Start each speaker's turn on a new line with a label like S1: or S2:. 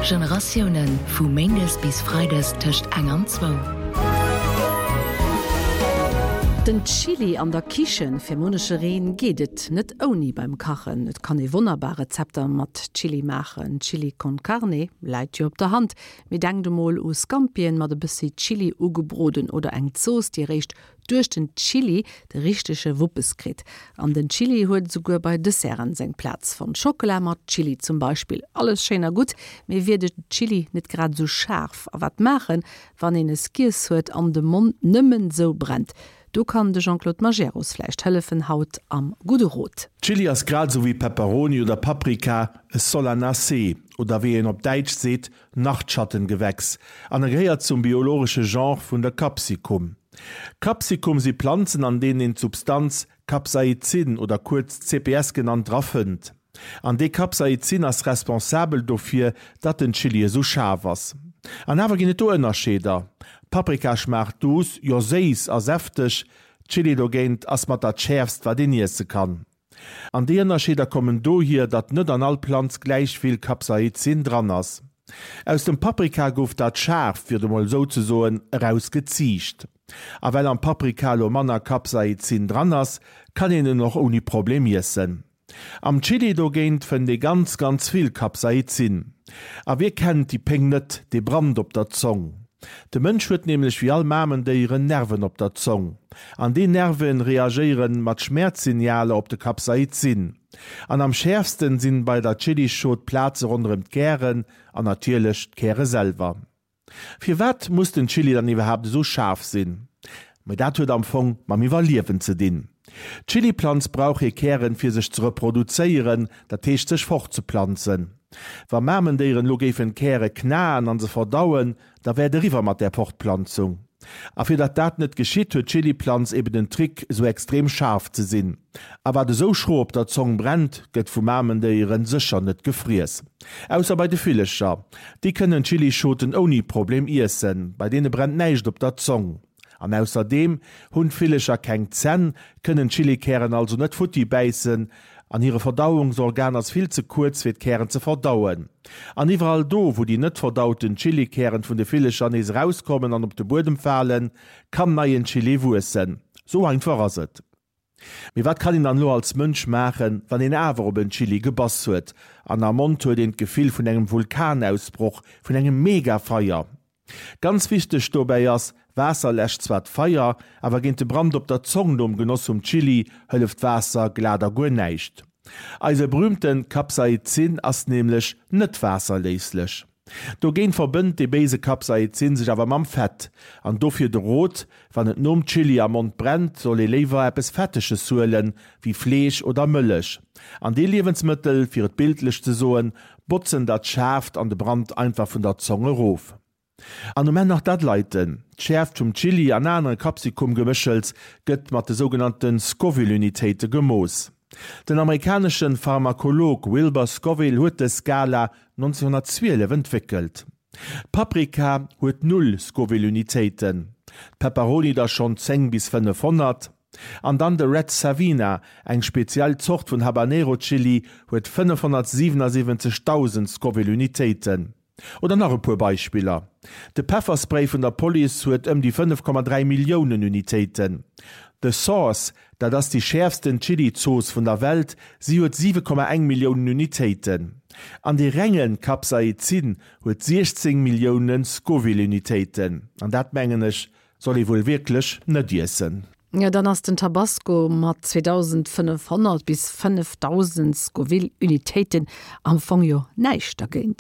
S1: Generatiounen, vu méindes bis freides tëscht eng an zwou.
S2: Den Chili an der Kichen, Fir munnechereen geet et net ouni beim Kachen. Et kann ee wonnerbar Rezepter mat Chili maachen. Chili con Carne läit jo op der Hand, mee denkt emol u Scampien mat e bëssi Chili ugebroden oder eng Zooss, déi eréischt duerch den Chili de richtege Wuppes kritt. An den Chili huet esouguer bei Desserten seng Plaz fonnt. Schockela mat Chili zum Beispill. Alles schéin a gutt, mee wier de Chili net grad esou schaarf? A wat maachen, wann een es giess huet an de Mond nëmmen esou brennt? Do kann de Jean-Claude Majerus vläicht hëllefen, haut am Gudde Rot.
S3: Chili ass grad esou wéi Pepperoni oder Paprika e Solanacée, oder wéi een op Däitsch seet, Nachtschattengewächs, an e gehéiert zum biologesche Genre vun der Capsicum. Capsicum si Planzen an deenen een d'Substanz Capsaicin oder kuerz CPS genannt dra fënnt. An dee Capsaicin ass responsabel dofir, datt den Chili esou schaarf ass. An awer ginn et do Ënnerscheeder, Paprika schmaacht duuss, jo séiss a säfteg, Chili dogéint ass mat dat schäerfst wat een iesse kann. An déi Ënnerscheeder kommen dohier, datt net an all Planz gläich vill Capsaicin dran ass. Aus dem Paprika gouf dat Schaarft, fir et emol esou ze soen, eraus geziicht. A well am Paprika elo manner Capsaicin dran ass, kann een en och ouni Problem iessen. Am Chili dogéint fënnt ee ganz, ganz vill Capsaicin. A wie kennt déi Péng net, dee Brand op der Zong? De Mënsch huet nämlech wéi all Mamendéieren Nerven op der Zong. An déi Nerven reagéieren mat Schmäerzsignaler op de Capsaicin. An am schäerfsten sinn bei der Chilischot d'Plaze ronderëm d'Kären an natierlech d'Käre selwer. Firwat muss den Chili dann iwwerhaapt esou schaarf sinn? Mee dat huet am Fong mam Iwwerliewen ze dinn. D'Chiliplanz brauch hir Kären fir sech ze reproduzéieren, dat heescht sech fortzeplanzen. Wa Mamendéieren elo géifen d'Käre knaen an se verdauen, da wär et eriwwer mat där Fortplanzung. A fir datt dat net geschitt, huet d'Chiliplanz eben den Trick esou extrem schaarf ze sinn. A wat esou schro op der Zong brennt, gëtt vu Mamendéieren sécher net gefriess. Ausser bei de Villecher. Déi kënnen Chilischoten ouni Problem iessen, bei deene brennt näischt op der Zong. An ausserdeem hunn d'Villecher keng Zänn, kënnen d'Chilikären also net futti bäissen an hire Verdauungsorgan ass vill ze kuerz fir d'Kären ze verdauen. An iwwerall do wou déi net verdauten Chilikären vun de Villecher nees erauskommen an op de Buedem falen, kann neien Chili wuessen. Sou einfach ass et. Mee wat kann een dann elo als Mënsch maachen, wann een awer op en Chili gebass huet an am Mond huet een d'Gefill vun engem Vulkanausbroch, vun engem Megafeier? Ganz wichteg dobäi ass, Waasser läscht zwar d'Feier, awer géint de Brand op der Zong nom Genoss vum Chili hëlleft Waasser glat a guer näischt. Eise berühmten Capsaicin ass nämlech net waasserléislech. Dogéint verbënnt dee béise Capsaicin sech awer mam Fett. An dofir de Rot, Wann et nom Chili am Mond brennt, soll ee léiwer eppes Fetteges huelen, wéi Fleesch oder Mëllech. An déi Liewensmëttel, fir et bildlech ze soen, botzen dat Schaarft an de Brand einfach vun der Zong erof. An um Enn nach dat Leiten. D'Schäerft vum Chili an anere Capsicum-Geméchels gëtt mat de sougenannte Scoville-Unitéite gemooss. Den amerikanesche Pharmakolog Wilbur Scoville huet dës Skala 1912 entwéckelt. D'Paprika huet null Scoville-Unitéiten, d'Pepperoni der schonn 10 bis 500. An dann de Red Savina, eng speziell Zort vun Habanero Chili, huet 577.000 Scoville Unitéiten. Oder nach e puer Beispiller, De Pefferspray vun der Police huet ëm déi 5,3 Milliounen Unitéiten. The Sauce, dat ass déi schäerfsten Chili-Zooss vun der Welt, si huet 7,1 Milliounen Unitéiten. An dee renge Capsaicin huet 16 Millioune Scoville-Unitéiten. An dat, mengen ech, Soll ee wuel wierklech net iessen.
S2: Jo, dann ass den Tabasco mat 2500 bis 5000 Scoville-Unitéiten am Fong jo näischt dergéint.